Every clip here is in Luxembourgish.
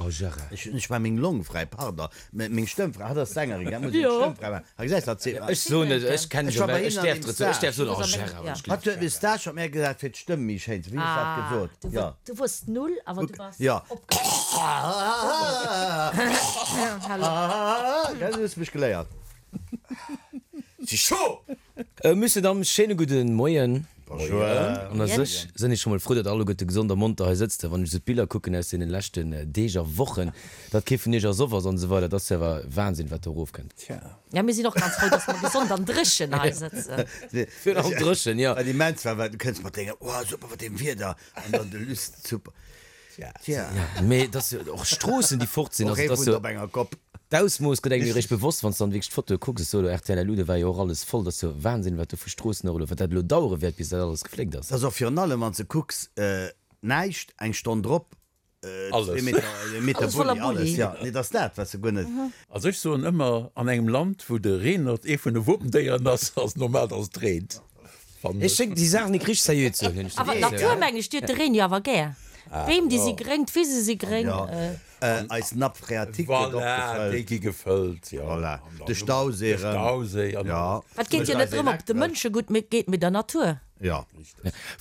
Oh Gérard. Ech hunn ech war meng Long fräi, pardon, meng Stëmm fräi. Hatt ass Sängerin, gell, muss eng Stëmm fräi maachen. Ha gesäis hatt seet. Ech soen et, ech kennen Ech war bei ech hinnen an däerf dem dozou, ech däerf Stage. soen, oh Gérard, wann ech Hatt huet mir Stage mat mär gesat fir d'Stëmm méi schéin ze, wéi hues dat gesot? Jo. Du wors null, awer du bass Jo. opgeschloen. Gell, du hues mech geléiert. Si chaud! Monsieur, Dames, schéine gudde Moien. Bonjour. An a sech sënn ech scho mol frou, datt alleguerte gesond a monter hei sëtzt. Wann ech esou d'Biller kucken aus deene leschten Deeg a Wochen, datt kee vun iech ersoff ass an esou weider, dat ass jo awer Wahnsinn, wat do erofkënnt. Tja. Ja, mir sinn och ganz frou, datt mer gesond an dréchen hei sëtzen. Virun allem dréchen, jo. Wat immens war, war, du kënns mat denger, oh super, mat deem Wieder, an dann de Luss, super. Tja. Mee et ass jo och Stroossen, déi fort sinn. Och Also ee et ass wunnt jo op enger Kopp. D'Ausmooss gëtt engem jo eréischt bewosst, wann s de dann wierklech d'Fotoe kucks. Ech soe elo rtl LU, do war jo och alles voll. Dat ass jo Wahnsinn, wat do vu Stroossen och elo, wat dat elo dauere wäert, bis dat alles gefléckt ass. Et ass och virun allem, wann s de kucks, näischt, eng Stonn drop, Alles. Meter, Meter Alles voller Bulli, alles, Bulli. jo. Nee, et ass dat, wat s de guer net. Also ech soen ëmmer, an engem Land, wou de Reenert ee vun de Wopendéieren ass, ass et normal, datt et reent. Ech schéngt déi Saach nik richteg seriö ze huelen, hunn ech Awer de Gefill. d'Natur, meng ech, déi huet de Reen jo awer gär. D'Beem, déi si gréng, d'Wise si gréng. Eis Nappe phréatique gëtt och Voilà, gefëllt. déi gi gefëllt, jo. Voilà, de Stauséi De erëm. Stauséi an Jo. Et geet jo net drëm, ob et de Mënsche gutt geet, mee der Natur. Jo.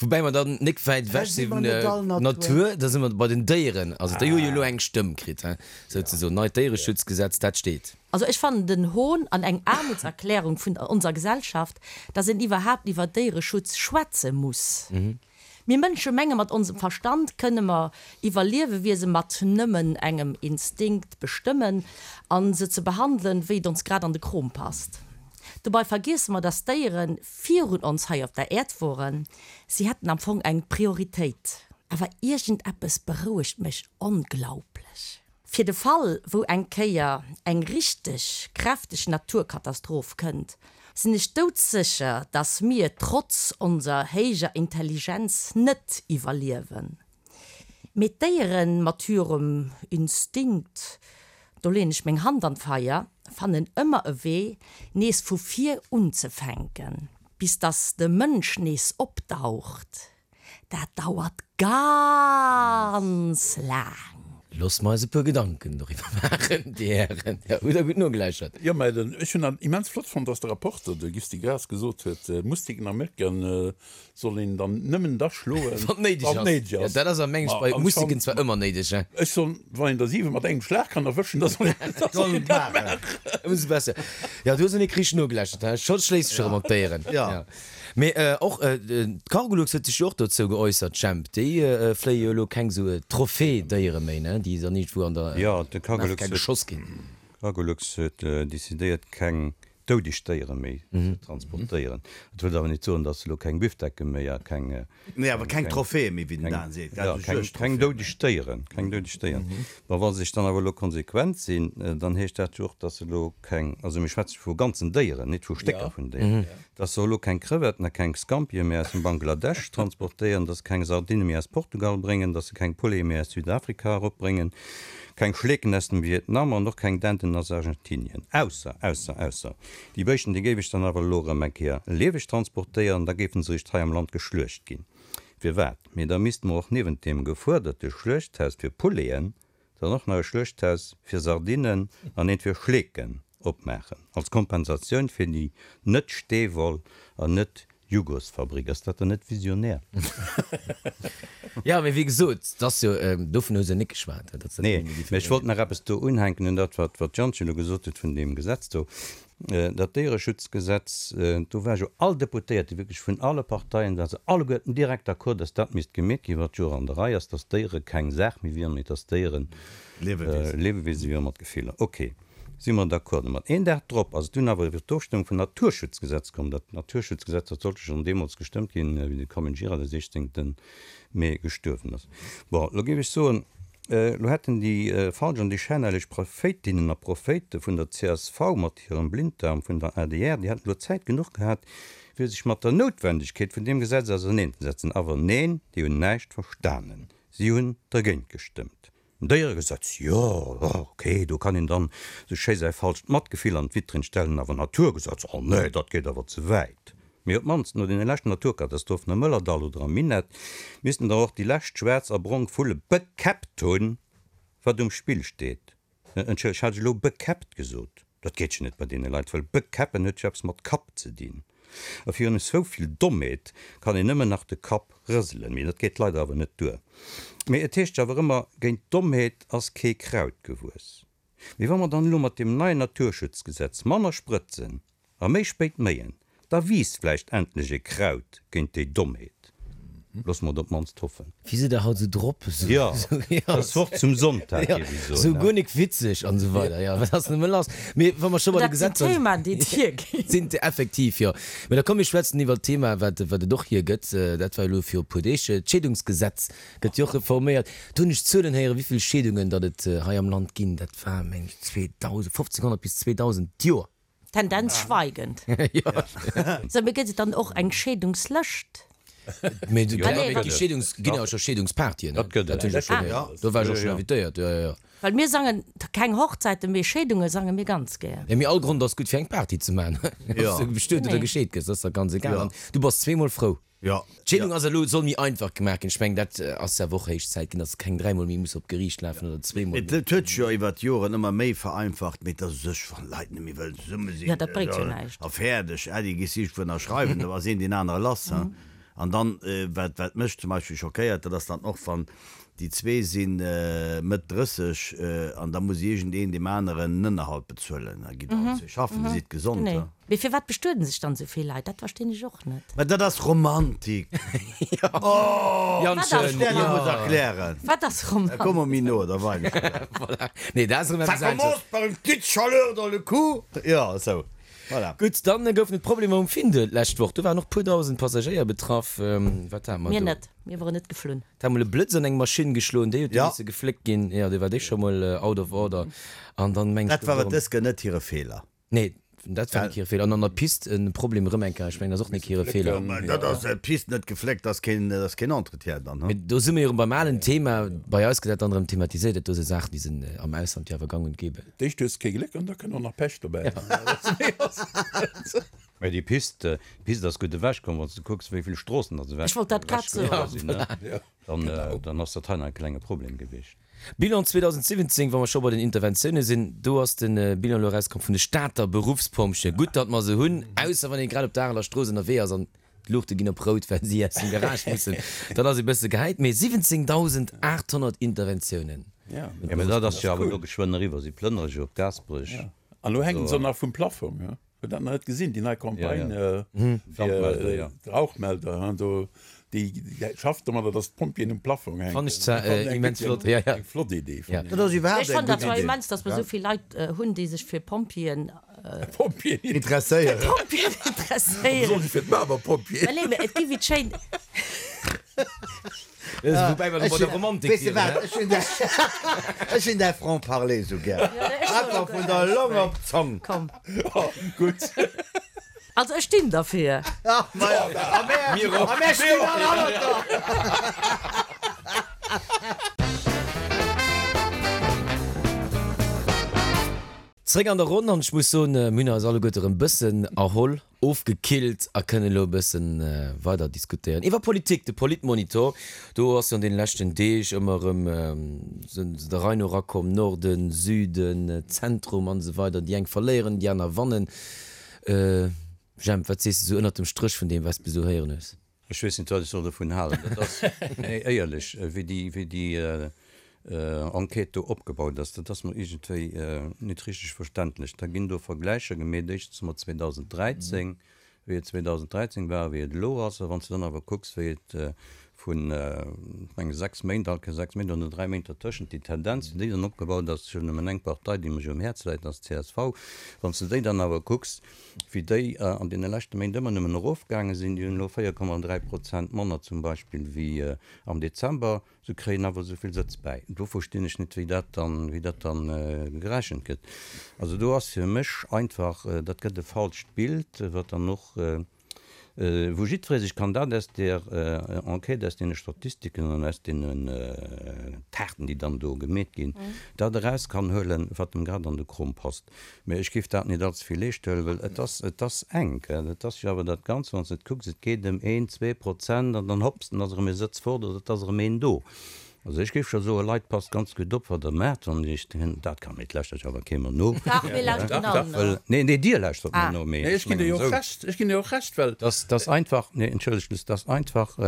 Woubäi mer dann nik wäit ewech si vun der Natur, da si mer bei den Déieren. Also déi hu jo elo eng Stëmm kritt, he, souzesoen. Neit Déiereschutzgesetz, dat steet. Also ech fannen den Hohn an eng Aarmutserklärung vun onser Gesellschaft, dass een iwwerhaapt iwwer Déiereschutz schwätze muss. Mir Mënsche menge mat onsem Verstand kënne mer iwwer Liewewiese mat nëmmen engem Instinkt bestëmmen an se ze behandelen, wéi et ons grad an de Krom passt. Dobei vergiesse mer, dass Déiere virun ons hei op der Äerd woren. Si hätten am Fong eng Prioritéit. Awer iergendeppes berouegt mech onglaublech. Fir de Fall, wou eng Kéier eng richteg kräfteg Naturkatastroph kënnt, sinn ech doudsécher, dass mir trotz onser héijer Intelligenz net iwwerliewen. Mee d'Déieren mat hirem Instinkt, do leen ech meng Hand an d'Feier, fannen ëmmer e Wee, nees vu vir unzefänken, bis dass de Mënsch nees opdaucht. Dat dauert ganz laang. Loosse mer eis e puer Gedanken doriwwer maachen, Dir Hären. Jo, hutt Der gutt nogeläuschert. Jo, mä den, ech hunn dat immens flott fonnt, dass de Rapporter, de Gusty Graas, gesot huet, Mustiken a Mécken soll een dann nëmmen da schloen, Wann et néideg wann et ass. néideg Jo, ass. dat ass a mengen Ma bei Mustiken anscheinend, zwar ëmmer néideg, hein. ech soen, wann een der 7 mat engem Schlag kann erwëschen, da soll een, da soll een dat maachen. Ëmsou besser. Jo, du hues en nik richteg nogeläuschert, hein. Scho schléisst sech erëm op d'Déieren. Jo. Mee och d'Cargolux huet sech jo och dozou geäussert, Jemp. Déi fléie jo elo keng sou Trophée-Déiere méi, ne, déi dann iergendwou an der Afrika geschoss ginn. D'Cargolux huet decidéiert, keng doudeg Déiere méi ze transportéieren. Dat wëllt awer net soen, datt se elo keng Büfdecke méi a keng. Nee, awer keng Trophäe méi, wéi den Dan seet, gell? Jo, keng doudeg Déieren, keng doudeg Déieren. Bon, wa se sech dann awer elo konsequent sinn, dann heescht dat jo och, datt se elo keng, also mir schwätze vu ganzen Déieren, net vu Stécker vun Déieren, Dass se elo keng Crevetten a keng Scampie méi aus dem Bangladesch transportéieren, dass se keng Sardinne méi aus Portugal bréngen, dass se keng Poulete méi aus Südafrika eropbréngen, keng Schleeken aus dem Vietnam an och keng Denten aus Argentinien. Ausser, ausser, ausser, déi Béischten, déi géif ech dann awer elo erëm eng Kéier lieweg transportéieren, da géifen se eréischt hei am Land geschluecht ginn. Firwat? Mee da misste mer och niewent deem gefuerderte Schluechthaus fir Pouleten Dann och nach e Schluechthaus fir Sardinnen an eent fir Schleeken opmaachen, als Kompensatioun fir déi net-Steewoll an net-Jugosfabrik. Ass dat dann net visionär? Jo, mee wéi gesot, et ass jo, dovun hu se net geschwat, datt se dat Nee, nëmme mee ech déi wollt nach eppes do unhänken un dat, wat d'Jantje elo gesot huet vun deem Gesetz do. Dat Déiereschutzgesetz, do war jo all Deputéierte, wierklech vun alle Parteien, ware se alleguerten direkt d'accord, dass dat misst gemeet ginn, wat jo och an der Rei ass, dass Déiere keng Saach méi wieren, mee dass Déieren Liewewiese wieren mat Gefiller. Ok, si mer d'accord domat. Een Dag drop ass et dunn awer iwwer d'Ofstëmmung vum Naturschutzgesetz komm. Dat Naturschutzgesetz, dat sollt jo schonn deemools gestëmmt ginn, wéi de Comyn Gira de 16. Mee gestuerwen ass. Bon, elo géif ech soen, elo hätten déi falsch an déi schänhelleg Prophéitinnen a Prophéite vun der csv mat hirem Blinddarm vun der adr, déi hätten elo Zäit genuch gehat, fir sech mat der Noutwendegkeet vun deem Gesetz auserneenzesetzen. Awer neen, déi hunn näischt verstanen. Si hunn dergéint gestëmmt. En Déieregesetz, jo, ok, do kann een dann sou schéi säi falscht Matgefill an d'Vitrinn stellen, awer Naturgesetz, oh nee, dat geet awer ze wäit. Mee op d'mannst no deene leschten Naturkatastrophen am Mëllerdall oder am Minett missten der och déi lescht schwaarz a brong Vulle bekäppt hunn. Wat um Spill steet. Entschëllegt, hat ech elo bekäppt gesot? Dat geet jo net bei deene Leit, well bekäppen huet jo eppes mat Kapp ze dinn. A virun esou vill Dommheet kann een nëmmen nach de Kapp rëselen. Mee dat geet leider awer net duer. Mee et heescht jo awer ëmmer, géint Dommheet ass kee Kraut gewuess. Mee wa mer dann elo mat deem neien Naturschutzgesetz manner sprëtzen a méi spéit méien, da wiisst vläicht endlech e Kraut géint déi Dommheet. Loosse mer et op d'mannst hoffen. Wéi sidd der haut esou drop? Jo, dat ass Wort zum Sonntag, géif ech soen. Esou guer nik witzeg an esou weider. Jo, wat ass nëmme lass? Mee wa mer scho bei de Dat sinn Gesetzer Themaen, déi et hierginn. sinn, effektiv, jo. Mee da komm mir schwätzen iwwert d'Thema, wat wat et och hiergëtt. Dat war jo elo viru puer Deeg, d'Scheedungsgesetz Gëtt jo och reforméiert. Do hunn ech Zuelen héieren, wéi vill Scheedungen datt et hei am Land ginn. Dat war, meng ech, 2.000, 1.500 bis 2.000 d'Joer. Tendenz schweigend. Sou, mee gëtt et dann och eng Scheedungslëscht? Mee et gi Scheedungs, ginn awer scho Scheedungspartyen, ne? Dat gëtt et. Dat hunn ech och schonn héieren. Do war ech och schonn invitéiert, jo, jo, jo. Well mir sangen keng Hochzäiten, mee Scheedunge sange mir ganz gär. Jo, mee all Grond ass gutt fir eng Party ze maachen. Ob s du bestuet oder gescheet gëss, ass da ganz egal. An du bass zweemol frou. Jo. D'Scheedung ass elo, soll méi einfach gemaach ginn. Ech mengen, dat ass awer och héich Zäit ginn, dass keng dräimol méi muss op d'Geriicht lafen oder zweemol méi. Et huet sech jo iwwer d'Joren ëmmer méi vereinfacht, mee et ass u sech, wann Leit net méi wëllen zesumme sinn, Jo, dat bréngt jo näischt. a fäerdeg, Äddi, gees iergendwou ënnerschreiwen, da ass een deen anere lass. An dann, wat, wat mech zum Beispill schockéiert, dat ass dann och, wann déi zwee si Mëtt 30 an da muss iergendeen deem aneren en Ënnerhalt bezuelen. Da gitt allen zwee schaffen, Dir sidd gesond. Mee firwat bestueden sech dann esou vill Leit? Dat verstinn ech och net. Mä dat ass Romantik. Oh! Janschen, jo. Muss erklären. Wat ass Romantik? Komm mer méi no, da weinen ech der. Voilà. Nee, dat ass erëm Ça eppes anesches. commence par une petite chaleur dans le cou. Jo, esou. Voilà. Gutt, dann goufen et Problemer um Findel d'lescht Woch. Do waren och puer dausend Passagéier betraff. Wat hate mer Mir do? net. Mir woren net geflunn. Et hat mol e Blëtz an eng Maschinn geschloen, déi huet du Ja. misse gefléckt ginn. Jo, do war déi scho mol out of order. An dann meng ech, Dat war et dës Kéier net hire Feeler. Nee, dat war nik hire Feeler. An an der Pist en Problem erëm eng Kéier, ech mengen, dat ass och nik hire Feeler. Mä dat ass d'Pist net gefléckt, ass keen, ass keen Entretien dann, Mee do si mir jo erëm beim alen Thema. Bei eis gëtt dat dann erëm thematiséiert, dat do si Saachen, déi sinn am Ausland jo awer gang und gäbe. D'éischt hues de kee Gléck an da kënnt och nach Pech dobäi. Mä déi Pist, d'Pist ass gutt ewechkomm, wann s de kucks, wéi vill Stroossen datt Ech wollt dat grad soen. ewechgeholl sinn, ne? Dann, dann ass dat hei nach e klenge Problem gewiescht. Bilan 2017, wa mer scho bei den Interventioune sinn, do ass de Bilan elo erauskomm vun de Stater Beruffspompjeeë. Gutt, datt mer se hunn, ausser wann ee grad op der Areler Strooss ënnerwee ass an d'Luuchte ginn op rout, well si aus dem Garage mussen. Dann ass ee bësse gehäit. Mee 17.800 Interventiounen. Jo, mä dat ass jo awer elo geschwënn eriwwer. Si plënnere jo op Gaasperech. An elo hänken se och nach vum Plaffong. Huet dat nach net gesinn, déi nei Campagne fir d'Rauchmelder, do déi schafft domadder, datt d'Pompjeeën um Plaffong hänken. Fann ech zwar immens flott, jo, jo. Eng flott Idee, fannen ech. Dat ass iwwerhaapt Ech eng fannen dat gutt zwar Idee. immens, datt mer esou vill Leit hunn, déi sech fir Pompjeeën. Pompjeeën. Interesséieren. Fir Pompjeeën interesséieren. Besonnesch fir d'Barber-Pompjeeën. Mä nee, mä et gi wéi d'schéin. Woubäi mer bei der Romantik Weess de wieren, wat, ech hunn däi, ech hunn däi Franc-parler esou gär. Einfach vun der Long op d'Zong. Komm. Gutt. Also ech stinn derfir. A mär, a mär stinn all hannert der. Zréck an der Ronn an ech muss soen, mir hunn eis alleguerte erëm bëssen erholl. Ofgekillt a kënnen elo e bësse weider diskutéieren iwwer Politik. De Politmonitor, do ass jo an deene leschten Deeg ëmmer erëm se der Rei no erakomm, Norden, Süden, Zentrum an esou weider. Déi eng verléieren, déi aner wannen. Jemp, wat sees de sou ënnert dem Stréch vun deem, wat s de bis elo héieren hues? Ech weess net, wat ech soll dovun halen. Dat ass, nee, éierlech, wéi déi, wéi déi Enquête do opgebaut ass, dat ass mer iergendwéi net richteg verständlech. Da ginn do Vergläicher gemeet, éischtens mat 2013, wéi et 2013 war a wéi et elo ass. A wann s de dann awer kucks, wéi et vun, ech menge 6 Méint, alt keng 6 Méint, oder 3 Méint dertëschent, déi Tendenz, wéi déi dann opgebaut ass, ech hunn nëmmen eng Partei, déi mech um Häerz läit, dat ass d'CSV, wann s de déi dann awer kucks, wéi déi an deene leschte Méint ëmmer nëmmen erofgaange sinn, déi hunn elo 4,3 Prozent manner zum Beispill wéi am Dezember, se kréien awer esou vill Sëtz bäi. Do verstinn ech net, wéi dat dann, wéi dat dann gerechent gëtt. Also do ass fir mech einfach, dat gëtt e falscht Bild, wat dann och wou jiddweree sech kann dat aus där Enquête, aus deene Statistiken an aus deenen Taarten, déi dann do gemeet ginn, dat eraus kann huelen, wat em grad an de Krom passt. Mä ech géif dat net allze vill eescht huelen, well et ass, et ass enk. Et ass jo awer dat Ganzt, wann s de et kucks, et geet ëm een, 2% an dann hopps, dann ass erëm ee Sëtz fort oder et ass erëm een do. Also ech géif scho soen, Leit, passt ganz gutt op, wat Der maacht, wann Iech dat kann, mee et lauschtert jo awer kee mer no. Dach, mir lauschteren all no. Well, nee, nee, Dir lauschtert mer no, mee Nee, ech ech ginn dir mengen jo och esou. Recht, ech ginn dir och Recht, well. Dass, dass einfach, nee, entschëllegt, Luss, dass einfach,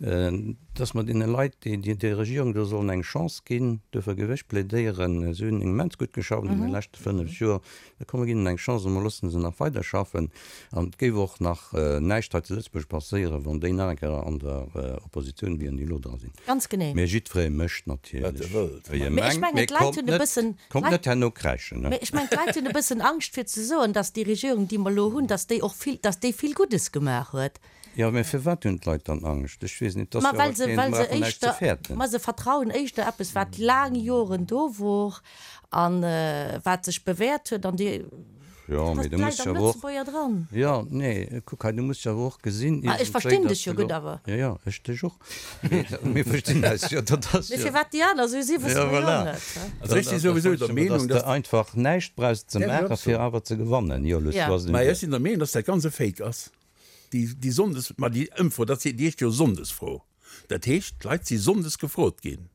dass mer deene Leit, déi déi Regierung do sollen eng Chance ginn, duerfir géif ech plädéieren, si hunn immens gutt geschafft an deene leschte 5 Joer, da komm mer ginn hinnen eng Chance a mer loosse se nach weiderschaffen. An et géif och nach näischt hei zu Lëtzebuerg passéieren, wann déi nach eng Kéier an der Oppositioun wieren, déi elo dra sinn. Ganz genee. Mee jiddweree mécht natierlech, wéi e Mee ech mengt. mengen, Mee d'Leit kommt hunn e net, bëssen, kommt d'Leit, net herno kräischen, ne? mee ech mengen, d'Leit hunn e bëssen Angscht fir ze soen, dass déi Regierung, déi mer elo hunn, dass déi och vill, dass déi vill Guddes gemaach huet. Jo, mä firwat hunn d'Leit dann Angscht? Ech weess net, et ass Ma jo well awer se, keen, well se brauchen näischt ze éischter, fäerten. ma se vertrauen éischter eppes, wat laang Joren do wor a wat sech bewäert huet an déi, Jo, dat mee du muss läit jo am awer och, Lëtzebuerger dran. jo, nee, kuck hei, du muss jo awer och gesinn Ah, ech iergendwéi, verstinn datt dech jo de gutt lo, awer. jo, jo, ech dech och, mee mir verstinn eis jo, dat ass Mee jo, firwat déi aner esou sinn, wësse jo, mer jo voilà. net, he? Also ech si souwisou der Meenung, dass dass. de einfach näischt brauchs ze Däerf ech maachen, och fir soen. awer ze gewannen. Jo, Luss, Ja. du has Mä den. ech sinn der Meenung, dass dat ganz e Fake ass. Déi, déi Sonndes, ma déi Ëmfro, dat si, déi heescht jo Sonndesfro. Dat heescht, d'Leit si sonndes gefrot ginn.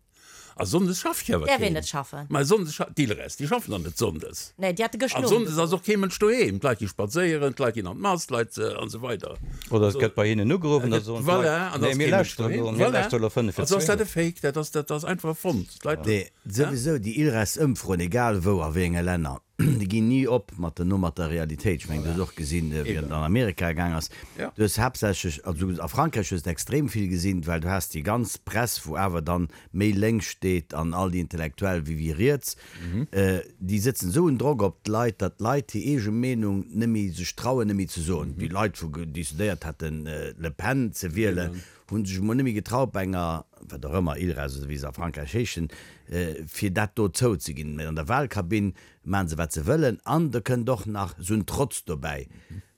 A sonndes schafft jo awer Däerf een keen. net schaffen. Ma sonndes scha, d'Ilres, déi schaffen dann net sonndes. Nee, déi hate gëscht An Owend sonndes ass gefrot. och kee Mënsch doheem. D'Leit gi spadséieren, d'Leit ginn an d'Mass, d'Leit, an esou weider. Oder et gëtt bei hinnen ugeruff an da soen d'Leit, Voilà, an da nee, ass mir kee Mënsch lauschteren elo, doheem. mir Voilà. lauschteren elo 5 fir Also ass dat 12. e Fake, dat ass, dat ass einfach erfonnt. D'Leit, Nee, souwisou déi Ilres-Ëmfroen, egal wou, a wéi enge Länner, Déi ginn ni op mat den no mat der Realitéit. Ech mengen, du hues och gesinn, wéi et an Amerika gaang ass. Du hues haaptsächlech, also a Frankräich hues de extrem vill gesinn, well du has déi ganz Press, wou awer dann méi lénks steet an all déi Intellektuell wéi wéi riets, déi sëtzen esou en Drock op d'Leit, datt d'Leit hir eege Meenung net méi sech trauen, net méi ze soen. Déi Leit, wou decidéiert haten, Le Pen ze wielen, hu sech emol net méi getraut bei enger, wat och ëmmer, ILRAS oder wéi se a Frankräich heeschen, fir dat do zouzeginn. Mä an der Wahlkabinn maachen se wat se wëllen an da kënnt och nach esou en Trotz dobäi,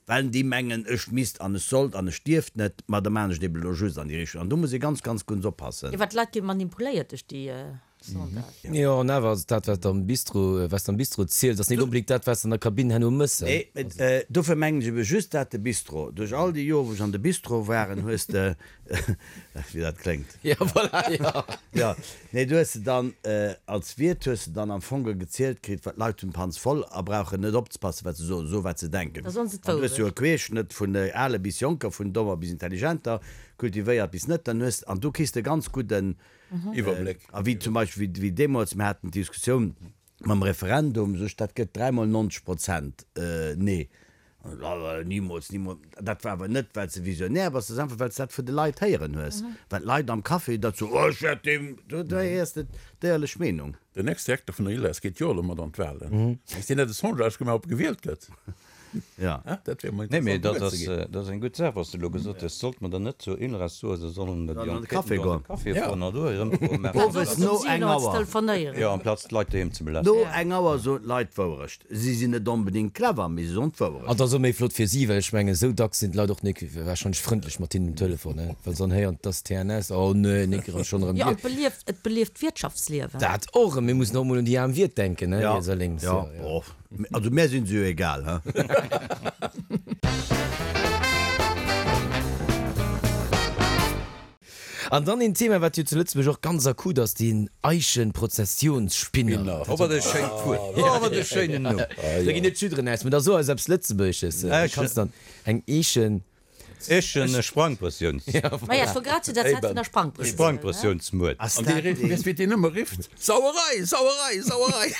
well déi mengen, ech misst an ech sollt an ech dierft net, ma da maachen ech et eben elo just an déi Richtung. An do muss ee ganz, ganz gutt oppassen. Jo, well d'Leit gi manipuléiert duerch déi Sondage. Jo, an awer ass dat, wat am Bistro, wat s de am Bistro ziels, ass net onbedéngt dat, wat s de an der Kabinn herno mëss. Nee, mä dofir mengen ech ebe just dat, de Bistro. Duerch all déi Joer, wou ech an de Bistro waren, hues de, wéi dat kléngt. Jo, voilà, jo. Jo, nee, du hues de dann, als Wiert hues de dann am Fong gezielt kritt, well d'Leit hunn d'Panz voll a brauchen net opzepassen, wat se soen, soe wat se denken. Da soen se An du hues jo e d'Wourecht. Querschnëtt vun ale bis Jonker, vun dommer bis intelligenter, kultivéiert bis net, dann hues, an du kriss de ganz gudden Iwwerbléck. A wéi zum Beispill, wéi deemools, mir haten d'Diskussioun mam Referendum, sech, dat gëtt dräimol 90 Prozent Nee. Nimools, nimools. Dat war awer net, well s de visionär bass, dat ass einfach, well s de dat vun de Leit héieren hues. Well d'Leit am Café dat soen, oh, ech wäert deem, do héiers de d'éierlech Meenung. Den Ex-Direkter vun der ILRES geet jo elo mat an d'Wahlen. Misst deen net e Sondage gemaach, ob e gewielt gëtt? Ja. Dat wär mol Nee, mee interessant dat gewuer ze ass, ginn. dat ass eng gutt Saach, wat s de elo gesot hues. Sollt mer dann net zur ILRES soen, se sollen déi Sollen an de Enquêten Café do an de goen. Café Ja. fueren an do hir Ëmfroe maachen? Owes no eng Auer. Telefonéieren. Jo, amplaz d'Leit doheem ze belästegen. No eng Auer soen d'Leit d'Wourecht. Si sinn net onbedéngt clever, mee si soen d'Wourecht. An et ass och méi flott fir si, well ech mengen, esou dacks sinn d'Leit och nik warscheinlech frëndlech mat hinnen um Telefon, ne? Well se dann héieren, et ass TNS, oh nee, nik erëm, schonn erëm Jo, an dir. et belieft, et belieft d'Wirtschaftsliewen. Dat och, mir mussen och emol un déi aarm Wiert denken, ne, Ja, riets a lénks. ja, Jo, jo. oh. Also mär sinn se jo egal, he? An dann een Thema, wat jo zu Lëtzebuerg och ganz akut ass, den Eichenprozessionsspinner. Oh, wat e schéint Wuert! Oh, wat e schéinen Numm! Da ginn net d'Schudderen aus, mä da so eis eppes Lëtzebuergesches. Du kanns dann eng Eechen. Eechen Sprangprëssiouns. Maja, ech wor grad zu der Zäit vun der Sprangprëssioun. Sprangprëssiounsmuert. Ass An dat dee rifft, dee. weess wéi deen ëmmer rifft, Sauerei! Sauerei! Sauerei!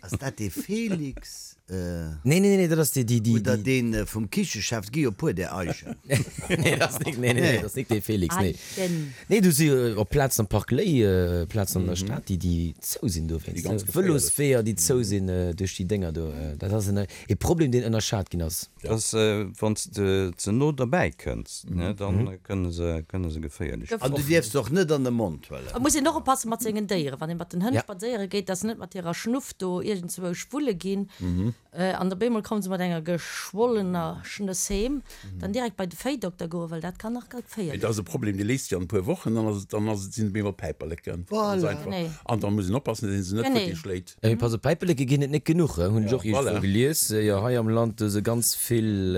Ass dat dee Felix? Nee, nee, nee, dat ass dee, déi, déi. Oder dee vum Kichechef? Et gi jo e puer där Eichen. Nee, dat ass nik, nee, nee, nee, dat ass nik dee Felix, nee. Eichen. Nee, do si och Plazen am Park Léi, Plazen an der Stad, déi, déi zou sinn dowéinst. Déi ganz geféierlech. Vëlosweeër, déi zou sinn duerch déi Dénger do. Dat ass en, e Problem, deen ënnerschat ginn ass. Dass, wann s de ze no derbäi kënns, ne, dann kënne se, kënne se geféierlech An du dierfs se och net an de Mond huelen. Et muss een och oppasse mat sengen Déieren, wann ee mat den Hënn Ja. spadséiere geet, dass se net mat hirer Schnuff do iergendzwousch wulle ginn. An op eemol komme se mat enger geschwollener Schnëss heem. Dann direkt bei de Véidokter goen, well dat kann nach geféierlech Et ass e Problem, dee léist sech an e puer Wochen, dann ass et, dann ass et, sinn et op eemol Päiperleken. Ganz Voilà. einfach. Genee. An da muss een oppassen, dass een se net Genee. futti schléit. Mee pass op, Päiperleke ginn et net genuch, hunn ech och iergendwou Voilà. gelies. Jo, hei am Land hu se ganz vill.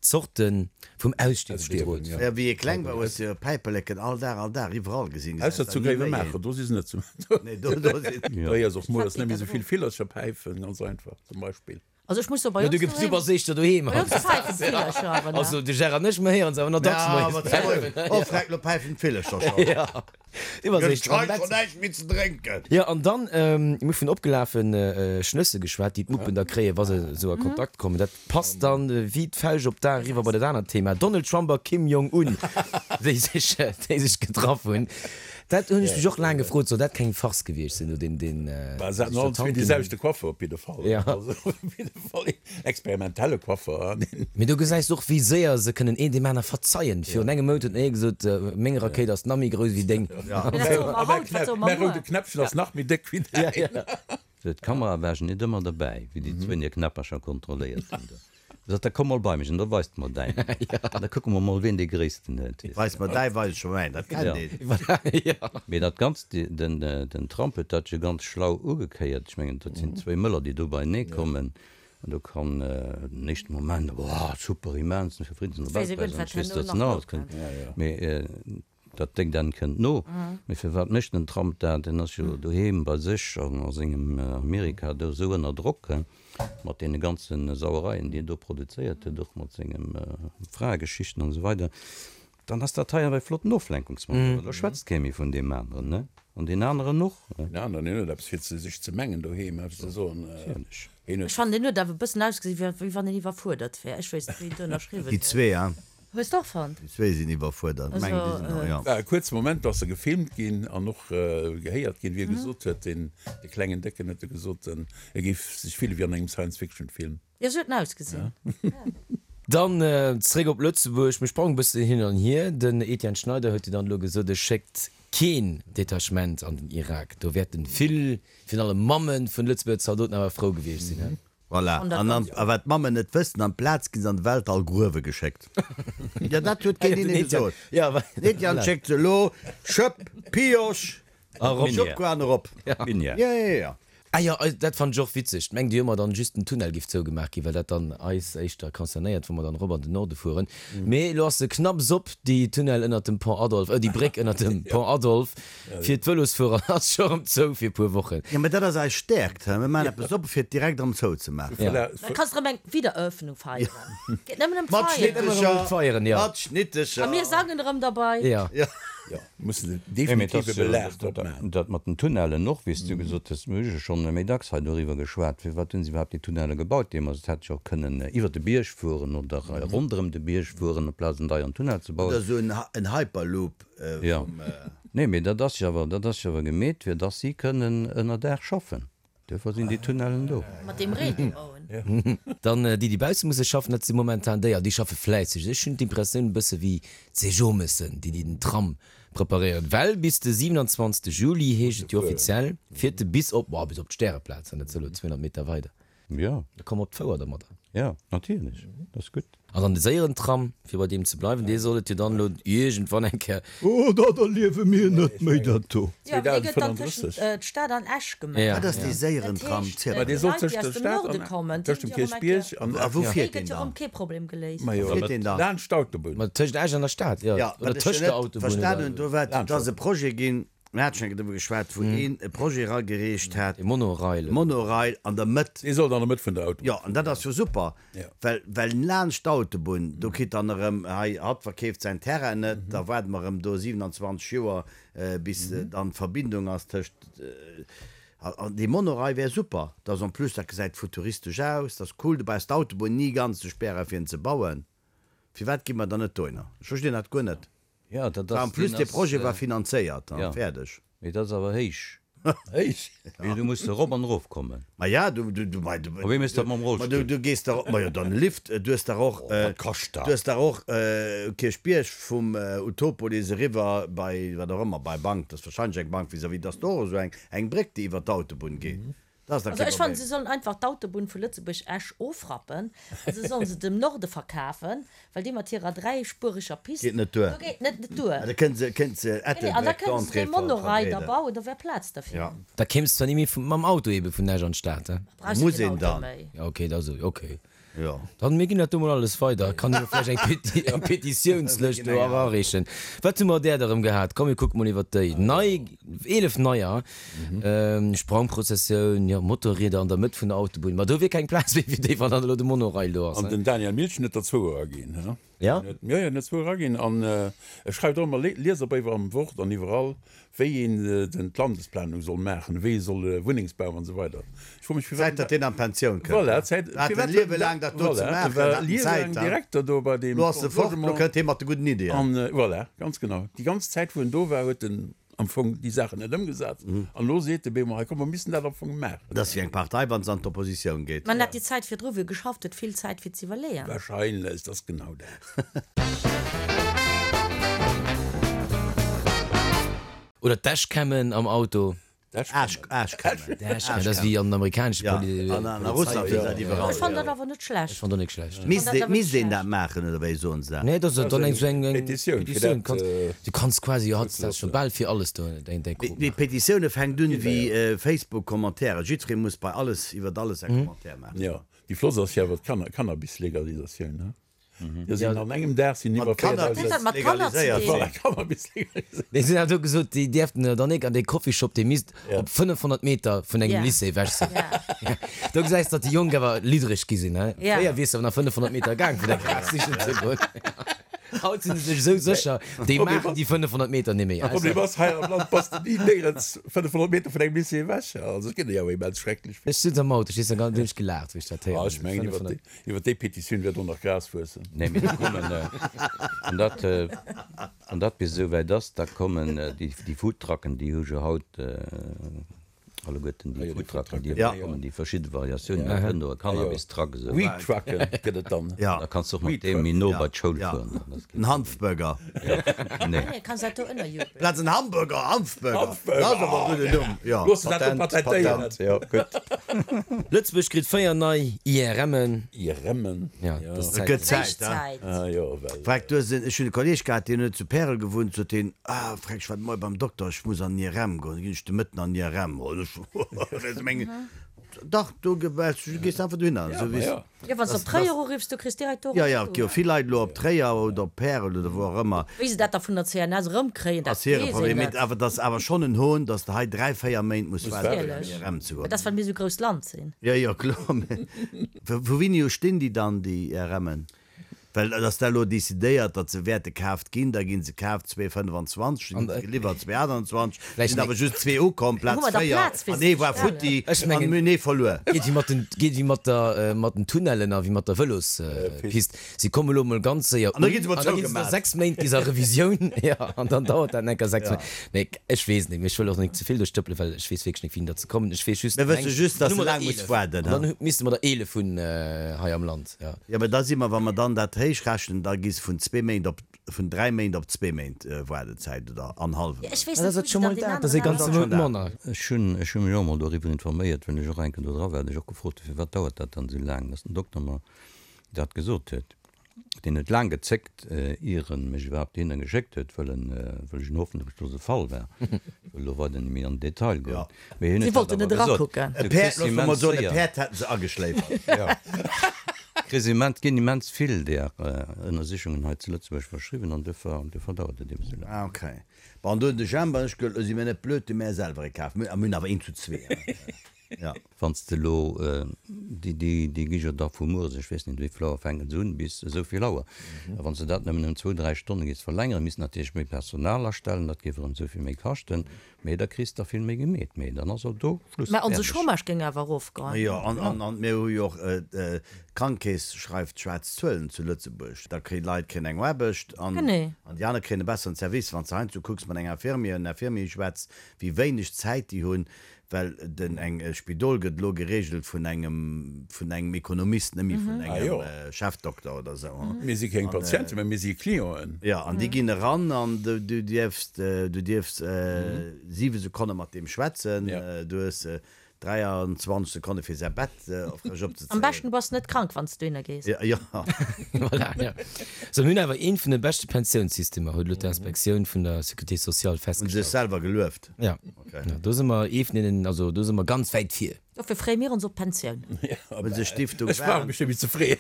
Zorte vum Ausstierwe bedroht. Jo, wéi ee kleng war, hues de jo Päiperleken all Dag, all Dag iwwerall gesinn. Ausser zu Gréiwemaacher, do si se net. Nee, do si. Do héiers och mol, dass net méi esou vill Villercher päifen, ganz einfach, zum Beispill. Also ech muss soen, bei Jo, du ons gëss, du doheem, bass éischter doheem bei ons päifen d'Villercher awer nach. Also de Gérard an ech, mer héieren se awer nach dacks Ja, moies awer zu päifen. Oh, freck, lo päifen d'Villercher schonn. Ja, du bass Gëtt éischter am hei Bett. schonn näischt méi ze drénken. Jo, an dann, mir hu vun opgelafe Schnësse geschwat, déi d'Muppen da kréien, wa se esou a Kontakt kommen. Dat passt dann wéi d'Fauscht op d'A eriwwer bei dat anert Thema, Donald Trump a Kim Jong Un, déi sech, déi sech getraff hunn. Dat hunn ech mech och laang gefrot, soll dat keng Farce gewiescht sinn, do deen, deen Bah, se haten allen zwee dee selwechte Coiffer op jidde Fall. Ja. Also op jidde Fall een experimentelle Coiffer, an een. Mee do gesäis de och, wéi séier se kënnen een deem aner verzeien. Virun engem Mount huet den ee gesot, meng Rakéit ass nach méi grouss wéi deng. Ja. Mee dat soe mer haut, wat soe mer Mäi roude muer? Knäppchen ass nach méi déck wéi däin. D'Kamera war net ëmmer derbäi, wéi déi zwéin hir Knäppercher kontrolléiert hunn do. Sot, da komm mol bei mech an da weist mer däin. An da kucke mer mol, wien dee gréissten huet. Weis mer däi, weis ech mer mäin. Dat kennt een. Jo. Mee dat Ganzt, den, den Trump huet dat jo ganz schlau ugekéiert. Ech mengen, dat sinn zwéi Mëller, déi do beienee kommen. An do kann den éischte Moment, Wow, super, immens, fir Friddensnobelpräis an ech weess, datt en alles kënnt. Mee Dat déckt Enn kënnt no. Mee firwat mécht den Trump dat? En ass jo doheem bei sech an a sengem Amerika do esou ënner Drock, mat deene ganze Sauereien, déi en do produzéiert huet, och mat senge Fraegeschichten an esou weider. Dann ass dat hei awer e flotten Oflenkungsmanöver. Da schwätzt kee méi vun deem aneren, ne? An deen aneren och. Deen aneren, deen huet eppes fir sech ze mengen doheem, eppes ze soen. Natierlech. Ech fannen, deen huet awer e bëssen ausgesinn, wéi wann en iwwerfuerdert wär. Ech weess net, wéi en do ënnerschriwwen Déi huet. zwee, hein? Hues de och fonnt? Déi zwéi sinn iwwerfuerdert. Also, Meng, déi sinn och, ja. War e kuerze Moment, do ass e gefilmt ginn an och gehéiert ginn, wéi e gesot huet, deen, dee klengen Décken huet e gesot, en e géif sech fille wéi an engem Science-Fiction-Film. Jo, sou huet en ausgesinn. Dann zeréck op Lëtzebuerg. Mir sprangen e bëssen hin an hier. Den Etienne Schneider huet jo dann elo gesot, e schéckt keen Detachement an den Irak. Do wäerten vill, virun allem Mamme vun Lëtzebuerger Zaldoten awer frou gewiescht sinn, he? Voilà, an an, a wat d'Mammen net wëssen, amplaz ginn se an de Weltall gruewe geschéckt. Jo, dat huet keen hinne gesot. Den Etienne schéckt se elo, Schëpp, Pioche, Schëpp an erop. Minière. Jo, jo, jo. Ah jo, dat fannen ech och witzeg. Mengt Dir ëmmer dann just den Tunnel giff zougemaach ginn, well dat dann eis éischter concernéiert, wa mer dann erop an den Norde fueren. Mee elo ass se knapps op, déi Tunnel ënnert dem Pont Adolphe, äh déi Bréck ënnert dem Pont Adolphe. Fir d'Vëlosfuerer ass scho rëm zou fir e puer Wochen. Jo, mä dat ass eis Stäerkt, he? Mir maachen eppes op, fir et direkt erëm zouzemaachen. Da kanns de erëm eng Wiedereröffnung feieren. Geet nëmmen ëm Mat d'Feieren. Feieren, jo. Mat Schnittecher. A mir sangen erëm derbei. Jo. Jo, mussen se definitiv e Belag drop maachen. Dat mat den Tunnellen och, wéi s du gesot hues, mir hu jo schonn méi dacks hei doriwwer geschwat, firwat hunn se iwwerhaapt déi Tunnelle gebaut deemools? Et hätt jo och kënnen iwwer de Bierg fueren oder ronderëm de Bierg fueren, amplaz en deieren Tunnel ze bauen. Oder esou en Hyperloop vum. Nee, mee dat ass jo awer, dat ass jo awer gemeet, fir dass si kënnen ënner Dag schaffen. Duerfir sinn déi Tunnellen do. Mat deem Reen dee mer hunn. Dann déi, déi bausse musse schaffen, dat si momentan déi, an déi schaffe fläisseg. Ech hunn d'Impressioun e bësse wéi d'Sejomessen, déi, déi den Tram preparéieren. Well bis de 27. Juli, heescht et jo offiziell, fiert e bis op, boah, bis op d'Stäreplaz, an dat ass elo 200 Meter weider. Jo. Da komm op d'Fouer domadder. Jo, natierlech, dat ass gutt. An dann de séieren Tram, fir bei deem ze bleiwen, dee soll et jo dann elo iergendwann eng Kéier. Oh, dat erliewe mir net méi, dat do. Jo, dee gëtt dann tëschent d'Stad an Esch gemaach. Wat ass dee séieren Tram? Dat heescht, d'Leit, déi aus dem Norde kommen, déi hunn jo erëm eng Kéier. A wou fiert deen deen dann? Dee gëtt jo erëm kee Problem geléist. Wou fiert deen dann? Laanscht d'Autobunn. Ma tëschent Esch an der Stad, jo. Jo, Oder wat ech tëscht jo der net Autobunn, verstan oder? hunn, do war, et ass e Projet ginn, Mir hate schonn eng Kéier driwwer geschwat, wou een e Projet eragereecht hat. E Monorail. Monorail an der Mëtt. Dee sollt an der Mëtt vun der Autobunn. Jo, an dat ass jo super, well, well laanscht d'Autobunn, do kritt dann erëm hei, hatt verkeeft säin Terrain net, da waarde mer erëm do 27 Joer, bis dann d'Verbindung ass tëscht, an dee Monorail wär super. Dat ass en plus, dat gesäit futuristesch aus, dat ass cool, du brauchs d'Autobunn ni ganz ze spären, fir en ze bauen. Firwat gi mer dann net dohinner? Ech verstinn dat guer net. Ja, dat ass, En plus, deen dee ass, Projet war finanzéiert an ja. fäerdeg. Mee dat ass awer héich. Héich? Mee du muss erop an erof kommen. Ma ja, du, du, du, ma du, A wéi méchs du dat mam ma du, Rollstull? du gees dach, ma jo, dann Lift, du hues dach och, Oh, wat kascht dat? du hues dach och Kierchbierg vum Utopolis eriwwer bei, wat och ëmmer, bei Bank, dat ass wahrscheinlech eng Bank vis-à-vis, dat ass do och esou eng, eng Bréck, déi iwwer d'Autobunn geet. Dat ass dach Also kee ech fannen, Problem. se sollen einfach d'Autobunn vu Lëtzebuerg-Esch ofrappen a se sollen se dem Norde verkafen, well déi mat hirer dräispuereger Pist, Geet net duer. do geet net net duer. Ah, da kënne se, kënne se Nee, nee, an da Ettelbréck kënne se d'Entrée dee Monorail da verbreeden. bauen, do wär Plaz derfir. Ja. Da kéims zwar ni méi mam Auto ebe vun Esch an d'Stad, he? Brauchs du Muss keen een Auto dann. méi. Ja, okay, da sou, okay. Jo. Dann, mir ginn dat do mol alles weider. Kann jo vläicht eng Peti, eng Petitiounslëscht do erareechen. Wat hu mer där da rëm gehat? Komm, mir kucke mol iwwert déi nei, 11 neier. Sprangprozessioun, jo, Motorrieder an der Mëtt vun der Autobunn. Ma do wier keng Plaz méi fir déi, wann dann elo de Monorail do ass, An ne? den Daniel Milchen huet der zwou eraginn, he? Ja? Jo, jo, en huet zwou eraginn. An e schreift och ëmmer Lieserbréiwer am Wort an iwwerall, wéi een den d'Landesplanung soll maachen, wéi ee soll Wunnengsbau an esou weider. Ech froe mech, firwat. Zäit, datt deen an d'Pensioun kënnt. Voilà, Zäit. Hat en Liewe laang dat do ze maachen, war en Zäit. Direkter do bei deem. Lo ass e fort, lo kënnt hie mat de gudden Ideeën. An voilà, ganz genau. Déi ganz Zäit, wou en do war, huet en am Fong déi Saachen net ëmgesat. An elo seet de Bemo, hei komm, mer missten dat am Fong maachen. Dat ass wéi eng Partei, wa se an d'Oppositioun geet. Mä en hat déi Zäit virdru, wou e geschafft huet, vill Zäit fir z'iwwerleeën. Wahrscheinlech, dat ass genau dat. Oder d'Dashcammen am Auto. Dashcammen. Dashcammen, dat ass wéi an den amerikanesche Ja, an a Russland sinn dat iwwerall. Ech fannen dat awer net schlecht. Ech fannen dat net schlecht. Misst misst een dat maachen oder wéi soen se dat? Nee, dat ass dann eng sou eng Petitioun fir Petitioun. dat. Kanns, du kanns quasi jo hautdesdaags scho bal fir alles do deng däi Krop Mee maachen. Petitioune fänkt un wéi Facebook-Commentairen. Jiddweree muss bei alles iwwert alles e Commentaire maachen. Jo, déi flott ass jo awer d'Cannabis-Legalisatioun, ne? Jo sinn an engem Dag sinn iwwer 4.000. Mat Kanner ze dinn. Voilà, Cannabis legaliséiert. Déi sinn awer do gesot, déi dierften dann nik an dee Coffeeshop, dee misst op 500 Meter vun engem Lycée ewech sinn. Do gesäis datt déi Jonk awer liddreg gi sinn, he. Fréier wiers de awer nach 500 Meter gaang fir däi Gras sichen ze goen. Haut sinn se sech esou sécher, déi maachen déi 500 Meter ni méi. De Problem ass, hei am Land bass de ni néierens 500 Meter vun engem Lycée ewech. Also et gëtt jo awer immens schrecklech vill. Ech sutz am Auto, ech hu ganz hunn ech gelaacht, wéi ech dat héieren hunn. Ech mengen, iwwer déi. Iwwer déi Petitioun wäert och nach Gras wuessen. Nee, mee da kommen, wann dat, wann dat bis esou wäit ass, da kommen déi, déi Foodtrucken, déi hu jo haut alleguerten déi Foodtrucken, déi ewech kommen, déi verschidde Variatiounen, da kënnt och e Cannabis-Truck esou. Weed-Trucke gëtt et dann. Da kanns de och mat deem méi no bei d'Schoul fueren. En Hanfburger. Nee. Kanns dat do ënnerjubelen. Plaz en Hamburger, Hanfburger. Dat ass awer e gudden Numm, jo. Looss de dat do patentéieren. Patent, jo, gutt. Lëtzebuerg kritt 4 nei IRMen. IRMen? Ja, dat ass Et gëtt Zäit. Zäit, hein? Ah jo, well. Freck, du hues en, ech hunn e Kolleeg gehat, deen huet zu Pärel gewunnt, sot hien, ah, Freck, ech war de Moie beim Dokter, ech muss an den IRM goen, da ginn ech de Mëtten an den IRM. An ech, ech mengen, dach, do ge, du gees einfach dohinner, esou wéi s. Jo, wann s de op Tréier uriffs, du kriss direkt do Jo, jo, et gi jo vill Leit elo op Tréier oder op Pärel oder wou och ëmmer. Wéi se dat da vun der CNS erëmkréien, dat Ass hire weess een Problem. Mee net. awer, et ass awer schonn en Hohn, datt s de hei dräi, véier Méint muss waarden, fir an Natierlech. IRM ze Mä goen. dat ass, well mir esou grousst Land sinn. Jo, jo, kloer. Mä vu wéini u stinn déi dann, déi IRMen? Well et ass da elo decidéiert, datt se wäerte kaaft ginn. Da gi se kaaft 2025, da gi se geliwwert 2028, sinn awer just zwee ukomm, Plaz 4 an ee war futti an mir hunn ee verluer. Geet wéi mat den, geet wéi mat der, mat den Tunnellen a wéi mat der Vëlospist. Si komme elo emol ganz séier un, an da gi se no 6 Méint gi se a Revisioun, jo, an dann dauert dat enker 6 Méint. Mee ech weess net, mee ech wëll och net ze vill do stëppelen, well ech weess wierklech net, wéini datt se kommen. Ech weess just, Mir wësse just, datt se laang muss waarden. An dann misste mer der 11 hunn hei am Land. Ja. Jo, mä da si mer, wa mer dann dat héich rechnen, da gi se vun zwee Méint op, vun dräi Méint op zwee Méint Waardezäit oder an hallwe Méint. Ech weess Dat net, ass wou et se scho dann mol deen dat, dat ass ee aneren ganze Mount manner. Ech hunn, ech hu mech och emol doriwwer informéiert, well ech och enken do dra war, hunn ech och gefrot, firwat dauert dat dann esou laang, dass den Dokter mer dat gesot huet. Deen huet laang gezéckt, ier en mech iwwerhaapt dohinner geschéckt huet, wëll en, wëll ech en hoffnungslose Fall war. Ech wëll elo weider net méi an den Detail goen. Mee hien Si huet dat wollten awer net gesot, erakucken. E Du Päerd, kriss looss mer immens mol soen, e séier. Päerd hätten se ageschléifert. Jo. Kriss immens, ginn immens vill där Ënnersichungen hei zu Lëtzebuerg verschriwwen an duerfir, duerfir dauert et eben esou laang. Ah, okay. Bon, an do hunn de Jemp an ech gehuet, elo si mir net blöd, du mir selwer ee kaf. Mir hunn awer een zu zwee, hein. Ja. Wann s de elo, déi, déi gi jo da vu mueres, ech weess net wéi vill Auer fänken se un, bis esou vill Auer. A wann s de dat nëmmen ëm zwou, dräi Stonne géifs verlängeren, misst natierlech méi Personal astellen, dat géif erëm esou vill méi kaschten, mee da kriss de der vill méi gemeet. Mee dann ass och do Schluss, Mä onse fäerdeg. Chômage géing awer erofgoen. Jo, an, an, an mir hu jo och, d'Krankekeess schreift schwaarz Zuelen zu Lëtzebuerg. Da kréien d'Leit kréien eng Aarbecht an, Genee. an déi aner kréien e besseren Service. Wann s de heiansdo kucks mat enger Infirmière, en Infirmier schwätz, wéi wéineg Zäit déi hunn, Well den eng Spidol gëtt elo geregelt vun engem vun engem Ekonomist, net méi vun engem Chefdokter oder esou. Mir si keng Patienten, mä mir si Clienten. Jo, an déi ginn eran an du dierfs du dierfs 7 Sekonne mat deem schwätzen. Du hues. 23 Sekonne fir säi Bett frësch opzezéien. Am beschten du bass net krank wann s du dohinner gees. Jo. Voilà, jo. Sou, mir hunn awer een vun de beschte Pensiounssystemer, huet elo d'Inspektioun vun der Sécurité sociale Hunn se festgestallt. sech selwer gelueft? Ja. Okay. Ja, do si mer ee vun deenen, also do si mer ganz wäit vir. Dofir freeë mir ons op d'Pensioun. Hunn se Stiftung Ech brauch mech net méi ze freeën.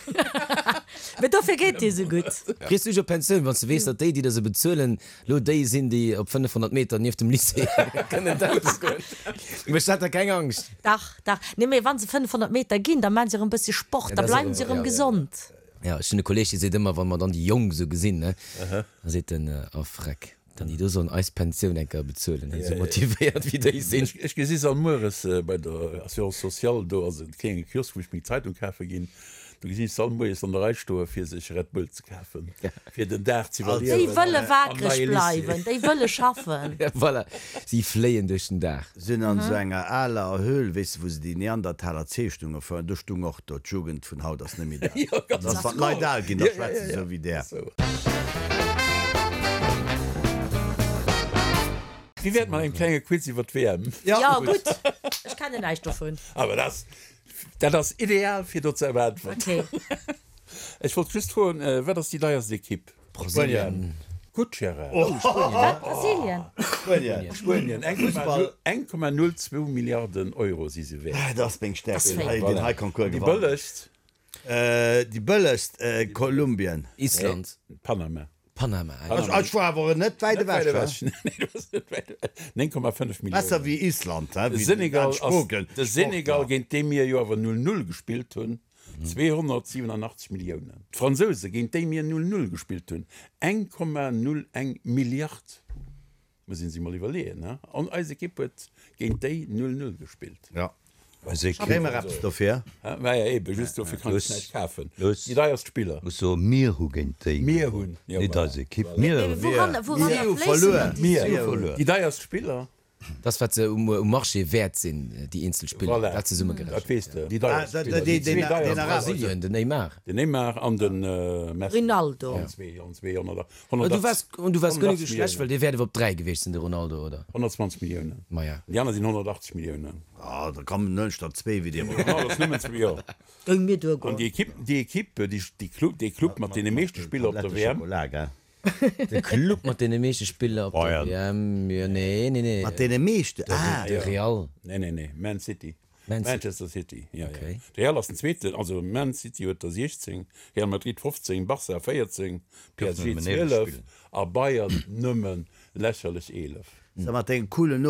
Mee dofir geet dir esou gutt. Frees du dech op d'Pensioun, wann s de weess, datt déi, déi der se bezuelen, lo déi sinn, déi op 500 Meter nieft dem Lycée kënnen d'Autos goen? Mécht dat der keng Angscht? Dach, dach. Nee, mee wa se 500 Meter ginn, da maachen se erëm e bësse Sport, da bleiwen se erëm gesond. Jo, ech hunn e Kolleeg, dee seet ëmmer, wa mer dann déi Jonk esou gesinn, ne, da seet en, Oh Freck. Dann déi do sollen eis Pensioun eng Kéier bezuelen, esou motivéiert wéi déi sinn. Ech gesi se all mueres bei der Assurance sociale, do ass e klénge Kiosk wou ech meng Zeitung kafe ginn, do gesinn ech se all moies an der Rei stoe fir sech Red Bull ze kafen, fir den Dag ze iwwerliewen. Déi wëlle wakereg bleiwen, déi wëlle schaffen. Voilà, si fléien duerch den Dag. Sinn an esou enger aler Höhl, weess de, wou se déi Neandertaler Zeechnunge foueren, do stung och do, d'Jugend vun haut ass net méi dat. Dat ass, wann d'Leit al ginn, da schwätze se esou wéi där. Wéi wär et mat engem klenge Quiz iwwer d'WM? Jo, gutt, ech kennen näischt dovun. Awer dat, dat ass ideal fir do ze äntweren. Okay. Ech wollt just froen, wat ass déi deierst Ekipp? Brasilien. Gutt, Gérard. Oh, Spuenien. Wat, Brasilien? Spuenien. Spuenien, 1,02 Milliarden Euro si se wäert. Dat ass meng Stärkt, Das deen hei, deen hei Concours Déi gewannen. bëllegst? Déi bëllegst, Kolumbien. Island. Panama. Panama, ah jo. Ech war awer net wäit Net wäit ewech, ewech. Nee, du bass net wäit ewech. 9,5 Milliounen. Besser wéi Island, he, De wéi den Senegal ass, Spoken, de Senegal, Sportler. géint dee mir jo awer 0, 0 gespillt hunn, 287 Milliounen. D'Fransouse, géint déi mir 0, 0 gespillt hunn, 1,01 Milliard. Muss een sech mol iwwerleeën, he? An eis Ekipp huet géint déi 0, 0 gespillt. Ja. Eis Ekipp. Kréie mer eppes dofir? Hä? Maja, eben, just dofir kann ech näischt kafen. Luss. Déi deierst Spiller. Muss soen, mir hu géint déi Mir hunn, jo, net voilà. eis Ekipp. Mir Mee hunn. wouran, wouranner Mir hu fléissen verluer. dann déi Mir. Mir hu Suen? verluer. Déi deierst Spiller. Dat wat se um Marché wäert sinn, déi eenzel Spiller, Voilà, dat zesummegerechent. dat weess de. Déi deierst Ah, Spiller, deen- déi zwee deen- deierst deen Spiller. Brasilien, den Neymar. Den Neymar an de Messi. Rinaldo. Allen zwee, allen zwee 100, Du 180, waars, und du waars guer net esou 180 schlecht, well Milliounen. dee wäert awer op 3 gewiescht sinn, de Ronaldo, oder? 120 Milliounen. Maja. Déi aner sinn 180 Milliounen. Ah, da kommen nëmmen statt zwee wéi dir. Ronaldo ass nëmmen zwee, jo. Géing mir An duergoen. déi Ekipp, déi Ekipp, déi, déi Club, dee Club mat deene meeschte Spiller op der WM. Schokola, gell? De Club mat deene meeschte Spiller op der WM, jo, nee, nee, nee. Mat deene meeschte? Ah, De Real. Nee, nee, nee, Man City. Man City. Manchester City, ja, ja. Okay. De Real ass den zweeten, also Man City huet der 16, Real Madrid 15, Barca 14, PSG nëmmen 11 12 spillen. a Bayern nëmmen lächerlech 11. Sag mat dengem coolen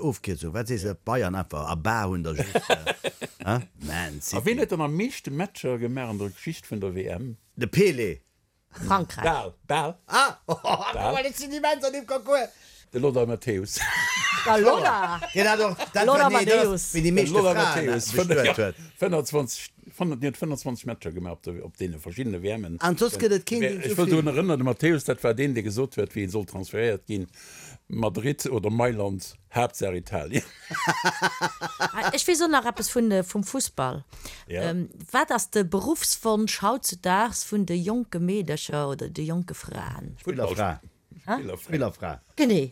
Ofkierzung, wat sees de, Bayern einfach a Bar hunn der just, hein? Man A wien City. huet dann am meeschte Matcher gemaach an der Geschicht vun der WM? De Pelé. Frankräich. Bal, bal. Ah! Guck mal, ech sinn immens an deem Concours. De Lothar Matthäus. Da Lothar! Deen hat och, dat war, Lothar nee, dat ass, Matthäus. wien déi De meeschte Lothar Fraen Matthäus. bestuet huet. 25, deen huet 25 Matcher gemaach op de, op deene verschiddene WMen. An soss gëtt et keen, deen Ech esou wëll vill. drun erënneren, de Matthäus, dat war deen, dee gesot huet, wéi en soll transferéiert ginn, Madrid oder Mailand, Haaptsaach Italien. Ech weess och nach eppes vun vum Fussball. Ja. Wat ass de Beruffswonsch hautzudaags vun de jonke Meedercher oder de jonke Fraen? Spillerfra. Spillerfra. Spillerfra. Genee,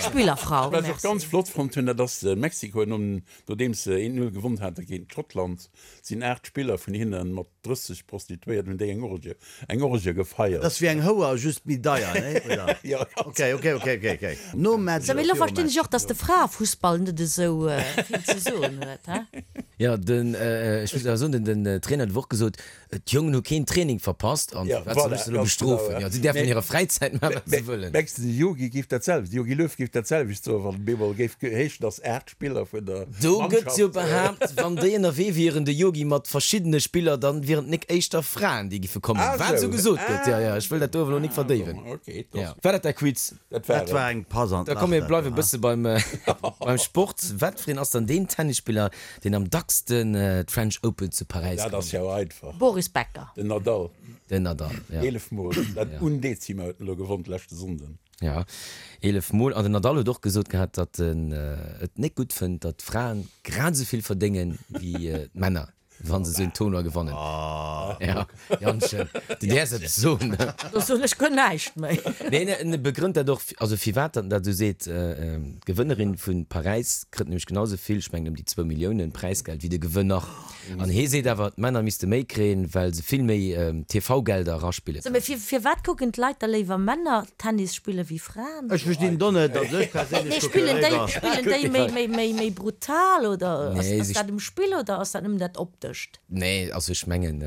Spillerfrau. Wat ech och ganz flott fonnt hunn, dat ass Mexiko, nom, nodeems se 1, 0 gewonn hate géint Schottland, sinn 8 Spiller vun hinne mat 30 Prostituéierten, hunn déi eng Orgie, eng Orgie gefeiert. Dat ass wéi eng Houer, just méi deier, nee? Oder? Jo, ganz. Ok, ok, ok, ok, ok. Nom Match Sou, mee oder elo virum verstinn Match? ech och, dass de Fraefussball net esou vill ze soen huet, he? Jo, den, ech muss awer soen, den, den Trainer huet och gesot, D'Jongen hu keen Training verpasst an Ja, firwat soll voilà, ech se elo ganz genau, bestrofen? ja. Jo, si däerfen Mee- an hirer Fräizäit maachen, wat se wëllen. Mengs de, de Jogi géif dat selwecht, de Jogi Löw géif dat selwecht soen, wann bemol géif heeschen, dass 8 Spiller vun der Do gëtt jo Mannschaft. behaapt, wann déi ënnerwee wieren, de Jogi mat verschiddene Spiller, dann wieren et nik éischter Fraen, déi giffe kommen. Ah, Wat sou. esou gesot gëtt. Jo, jo, ech wëll dat do awer elo nik Ah, verdéiwen. bon, okay, dat Ja. War dat däi Quiz? Dat war Dat war et. eng Pass an Da d'Lach, komm, mir dat bleiwe do, ha? bësse beim, beim Sport. Wat fir een ass dann deen Tennisspiller, deen am dacksten d'French Open zu Paräis Dat ass gewonnen jo huet? einfach. Boris Becker. Den Nadal. Den Nadal, ja. 11 Mol. Dat Undezima huet en elo gewonn d'leschte Sonnden. Ja, 11 Mol. An den Nadal huet och gesot gehat, datt en et net gutt fënnt, datt d'Fraen grad esou vill verdéngen wéi d'Männer. Wann se esou en Tournoi gewannen. Ja, Jantchen, du däerfs eppes soen. Do soen ech guer näischt méi. Nee, en begrënnt dat och, also firwat datt en dat esou seet, D'Gewënnerin vu Paräis kritt nämlech genau esou vill, ech mengen ëm déi zwou Milliounen Präisgeld, wéi de Gewënner. An hee seet awer, d'Männer misste méi kréien, well se vill méi TV-Gelder eraspille Sou, mee firwat kucken d'Leit da léiwer Männer Tennis spille wéi Fraen? Ech verstinn do net, also ech perséinlech Nee, spillen déi, spillen déi méi, méi, méi, méi brutal oder ass, ass dat um Spill oder ass dat nëmmen dat Optescht? Nee, also ech mengen,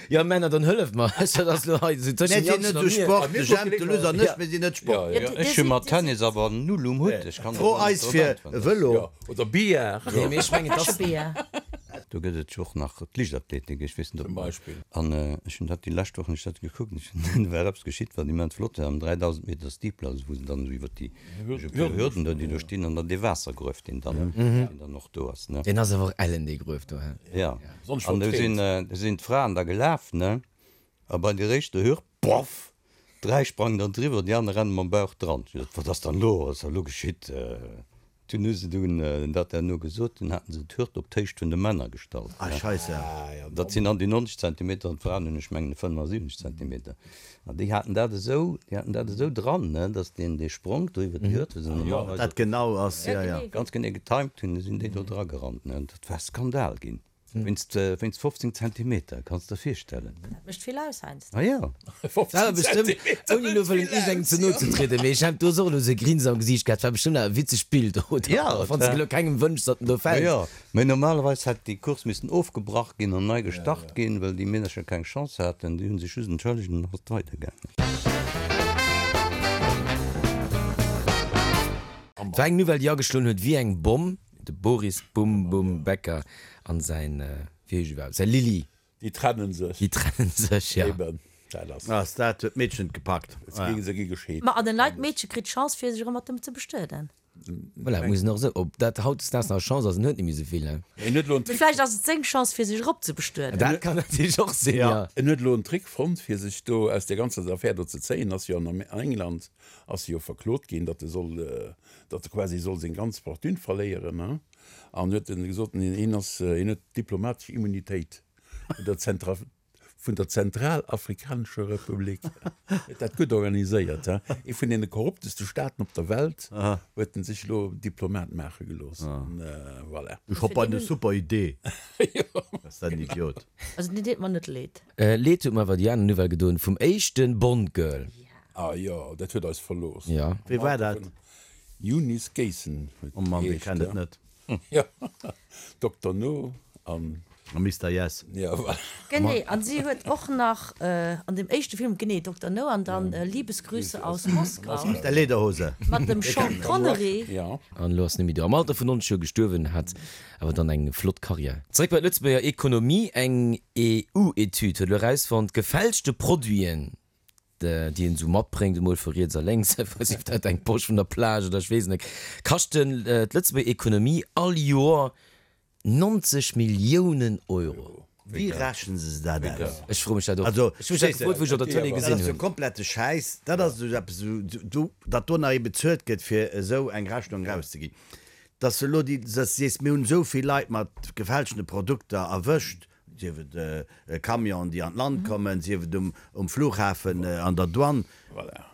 jo Männer, dann hëlleft mer, dat ass elo hei esou tëschent Mir sinn net esou Sport, de Jemp, de Luss an ech, mir sinn net Sport. Ech hu mat Tennis awer null um Hutt, ech kann Fro eis fir e Vëlo. Oder Billard. Nee, mee ech mengen, dass. Do gëtt et jo och nach d'Liichtathletik, ech weess net ob. Zum Beispill. An ech hunn dat déi lescht Woch hunn ech dat gekuckt, ech hunn, do war eppes geschitt, wat immens flott war, am 3000 Meter Steeple, also wou se dann esou iwwer déi Hürden do, déi do stinn, an dann dee Waassergruef, deen dann, deen dann och do ass, ne. Deen ass awer och ellen, dee Gruef do, he? Jo. An do sinn, do sinn d'Fraen da gelaf, ne, a bei der éischter Hürd, boff, dräi sprangen dann driwwer, déi aner rennen mam Bauch dran. Ech gesot, Wat ass dann elo, wat ass da elo geschitt? Dunn hu se dunn dat herno gesot, dunn haten se d'Hürd op d'Héicht vun de Männer gestallt. Ah, Scheisse. Dat sinn an déi 90 Zentimeter an d'Fraen hunn, ech mengen, 75 Zentimeter. An déi haten dat esou, déi haten dat esou dran, ne, datt deen, dee Spronk do iwwer déi Hürd, wou se normalerweis Dat genau ass, jo, jo. ganz genee getimed hunn, du sinn déi do dragerannt, ne. Dat war Skandal ginn. Wéinst wéinst 15 Zentimeter, kanns der virstellen. Dat mécht vill aus heiansdo. Ah jo. 15 War bestëmmt, Zentimeter ouni elo mécht wëllen vill iergendengem aus, ze no jo. ze trieden, mee ech hat do och elo esou e Grinsen am Gesiicht gehat. War bestëmmt awer e witzegt Bild, oder? Ja, Och wann s de elo kengem wënschs, datt en do fält. Jo, mee normalerweis hätt déi Course missen ofgebrach ginn an nei gestart ginn, well déi Meedercher keng Chance haten. Déi hu sech just entschëllegt an dann ass et weidergaangen. Et war eng Nouvelle, déi ageschloen huet wéi eng Bomm. De Boris Bum Bum Becker an säin, wéi heescht iwwerhaapt, säi Lilly. Déi trennen sech. Déi trennen sech, ja. Eben, dat ass. Ass dat huet d'Meedchen gepackt. Et gi se gi gescheet. Ma an en neit Meedche kritt d'Chance fir sech erëm mat em ze bestueden. Voilà, muss en och esou, ob dat hautdesdaags nach e Chance ass, en huet net méi esou vill, ne? En huet elo en Mee Trick. vläicht ass et seng Chance fir sech erop ze bestueden. Dat kann natierlech och sinn, ja. En huet elo en Trick fonnt fir sech do aus där ganzer Affär do ze zéien. Ass jo an England ass e jo verklot ginn, datt e soll datt e quasi soll seng ganz Fortune verléieren, hein, an huet en gesot, hien ass, hien huet diplomatesch Immunitéit vun der Zentra, vun der Zentralafrikanescher Republik. Huet dat gutt organiséiert, hein. Ee vun deene korrupteste Staaten op der Welt huet en sech elo Diplomat maache gelooss, an voilà. Ech hopp bei de super Idee. Ass dat en Idiot. Also deen deet mer net leed. Leed huet mer awer déi aner Nouvelle gedoen vum éischte Bond-Girl. Ah jo, dat huet eis verlooss. Jo. Wee war dat? Eunice Gayson huet Oh Mann, wee geheescht, kennt et ja. net? Jo, Dokter No an. A Mister Yes. Ja, voilà. Genee, an si huet och nach an dem éischte Film, genee, Dokter No an dann Liebesgrüße aus Moskau. Mit der Lederhose. Mat dem Sean Connery. Ja. An elo ass Nimi do am Alter vun 90 Joer gestuerwen, hat awer dann eng flott Karriär. Zeréck bei d'Lëtzebuerger Ekonomie, Eng EU-Etüd huet elo erausfonnt, gefälschte Produiten, déi een esou matbréngt, emol vu riets a lénks, sief dat eng Posch vun der Plage oder ech weess net, kaschten d'Lëtzebuerger Ekonomie all Joer 90 Milliounen Euro. Wéi rechnen se dat aus? Ech froe mech dat och. Also, Ech hu mech dat gefrot, wou ech op der Tëlee dat gesinn ass jo hunn. komplette Schäiss. Dat ass esou eppes, esou, datt do nach ee bezuelt gëtt, fir esou eng Rechnung erauszeginn. Datt se elo déi, datt s de sees, mir hunn esou vill Leit mat gefälschte Produkter erwëscht, sief et Camionen, déi an d'Land kommen, sief et um Flughafen an der Douane.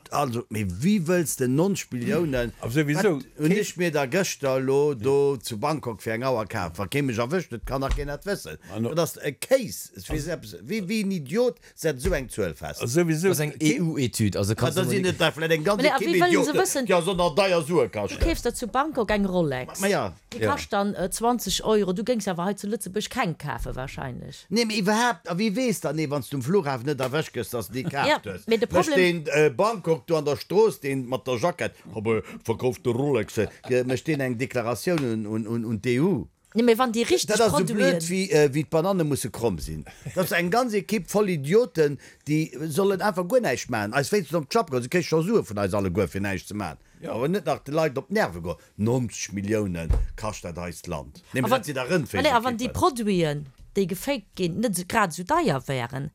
Also, mee wéi wëlls de 90 Milliounen, wat hunn ech mir da gëschter elo do zu Bangkok fir eng Auer kaf, wa kee mech erwëscht huet, kann nach keen dat wëssen. Dat ass e Kéis. Wéi een Idiot setzt esou eng Zuel fest? Dat ass eng EU-Etüd, also kanns du. Da sinn et der vläicht eng ganz Ekipp Idioten, déi eis och nach deier Sue kaschten. Du keefs der zu Bangkok eng Rolex. Déi kascht dann 20 Euro. Du géings awer hei zu Lëtzebuerg keng kafe wahrscheinlech. Nee, mee iwwerhaapt, a wie weess dann, nee, wann s du um Flughafen net erwëscht gëss, dass de déi kaaft hues. Mee de Mécht Problem. deen Bangkok do an der Strooss, deen mat der Jackett, habe verkaufte Rolexe, mécht deen eng Deklaratioun un d'EU? Nee, mee wann déi richteg Dat ass esou blöd, Produiten. wéi d'Bananne musse kromm sinn. Dat ass eng ganz Ekipp voll Idioten, déi sollen einfach guer näischt maachen, eis wéinstens op d'Schapp goen. Se kréie scho Sue vun eis alleguer, fir näischt ze maachen. Awer net nach de Leit op d'Nerve goen. 90 Millioune kascht dat eist Land. Nee, mee dat sinn da A wann déi Rëndfleeschekippen. Produiten, déi gefaked ginn, net grad esou deier wären.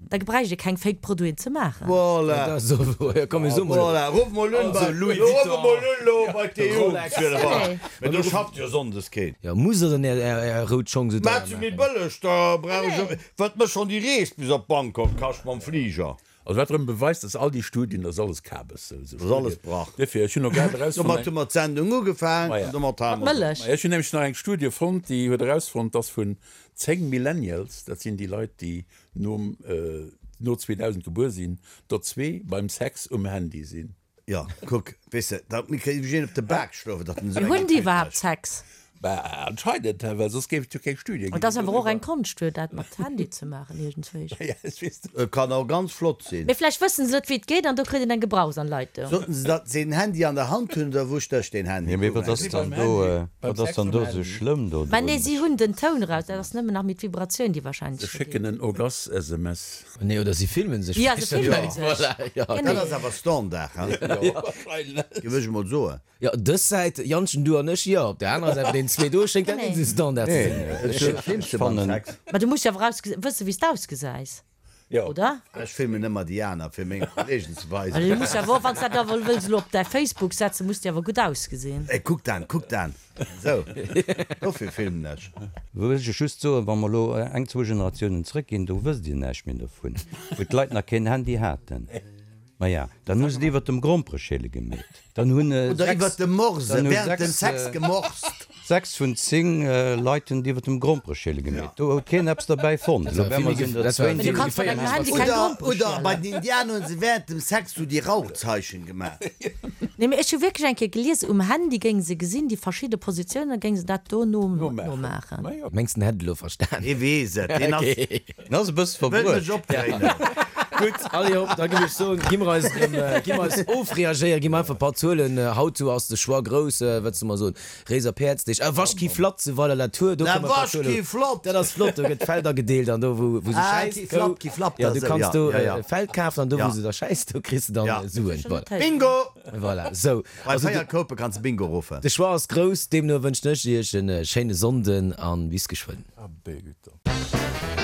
Da gebräicht ee keng Fake Produiten ze maachen. Voilà. Dat ass och wouer. Jo, komm, mir soe mol. Voilà, ruff mol un bei, Louis ruff Vuitton. mol un lo bei d'EU. Rolex. Nee. Mee do schafft jo sonndes keen. Jo, musst der dann är, är, är rout Schong sou deier Maach se méi maachen? bëlleg, da brauch ech och, wat mécht schonn déi Rees bis op Bangkok kascht mam Fliger. Also wat erëm beweist, dass all déi Studien, dat ass alles Kabes. Sou Dat ass alles Brach. Duerfir, ech hunn och grad erausfonnt, Domat hu mer d'Sendung ugefaang Maja. an domat hale Mat mer se op. Mëllech. Maja, ech hunn nämlech nach eng Studie fonnt, déi huet erausfonnt, dass vun 10 Millennials, dat sinn déi Leit, déi nom, no 2000 gebuer sinn, der zwee beim Sex um Handy sinn. Jo, kuck, weess de, da kritt ech een op de Bak schlofen, datt en esou Mee eng hunn déi Etüd iwwerhaapt mécht. Sex? Bah, anscheinend, well soss géif et jo keng Studie ginn. Et ass awer och eng Konscht, fir dat mat Handy ze maachen, iergendswéi. Ja, ech weess net. Et kann och ganz flott sinn. Mee vläicht wëssen se net, wéi et geet, an do kritt een eng Gebrauchsanleitung. Sollten se datt se en Handy an der Hand hunn, oder wou stécht deen Handy? Jo, mee wat ass dann do, wat ass dann do esou schlëmm do Mä nee, drun? si hunn den Toun eraus, dat ass nëmmen nach méi d'Vibratioun, déi wahrscheinlech Se schécken en Orgas-SMS. Nee, oder si filmen sech. Ja, se filmen sech. Voilà, ja. Dat ass awer Standard, hein? Géif ech emol soen. Jo, dës Säit, Jantchen, du an ech, jo. Op der anerer Säit, bei deenen zwee do, schéngt dat net esou Standard ze sinn. Ech filmst de beim Sex? Mä du muss jo awer wëssen, wéi s de ausgesäis, oder? Ech filmen ëmmer déi aner, fir menge Kollegen ze Well weisen. du muss jo awer och, wann s de dat awer wëlls elo op däi Facebook setzen, muss de awer gutt ausgesinn. Ey, kuck dan, kuck dan. Esou, dofir filmen ech. Wëll ech just soen, wa mer elo eng, zwou Generatiounen zrëckginn, do wësst Dir näischt méi dovun, wou d'Leit nach keen Handy haten. Maja, dann hu se et iwwert dem Grompereschäle gemeet. Dann hunn Oder sechs, iwwert dem Morse, dann hu während dem sechs, Sex gemorst. sechs vun 10 Leit hunn et iwwert dem Grompereschäle gemeet. Do huet keen eppes derbäi fonnt. Elo wär mer sinn der Dat war zwéin, Mee du déi. kanns mat engem Handy keng Oder, Grompere oder bei schielen. den Indianer hunn se während dem Sex sou déi Rauchzeichen gemaach. Nee, mee ech hu wierklech eng Kéier gelies, um Handy géinge se gesinn, déi verschidde Positiounen, da géinge se dat do no nomaachen. Mengs den hätt et elo verstan? Dee weess et, deen ass. Deen ass e bësse Wëll verbruecht. mech opdréinen. Gutt, allez hopp, da géif ech soen, gi mer eis erëm, gi mer eis ofreagéieren, gi mer einfach e paar Zuelen. Haut sou ass de Choix grouss, wat soll mer soen, Réiser Päerdsdeeg, ah, Wasch ki flatt zu Weiler-la-Tour, do Na, kënne mer e paar wasch Zuelen. ki flott! Dat ass flott, do gëtt Feld agedeelt an do wou, wou se Ah, schäisst, ki Kou, flapp, ki flapp, ja, da du sou, kanns ja, do ja, ja. e Feld kafen an do Ja. wou se da schäisst, do kriss de dann Ja. Suen. Voilà. Bingo! Voilà, sou. Bei Also 4 de, Koupe kanns de Bingo ruffen. de Choix ass grouss, deemno wënschen ech iech en schéine Sonnden an bis geschwënn. Abé, gutt dann.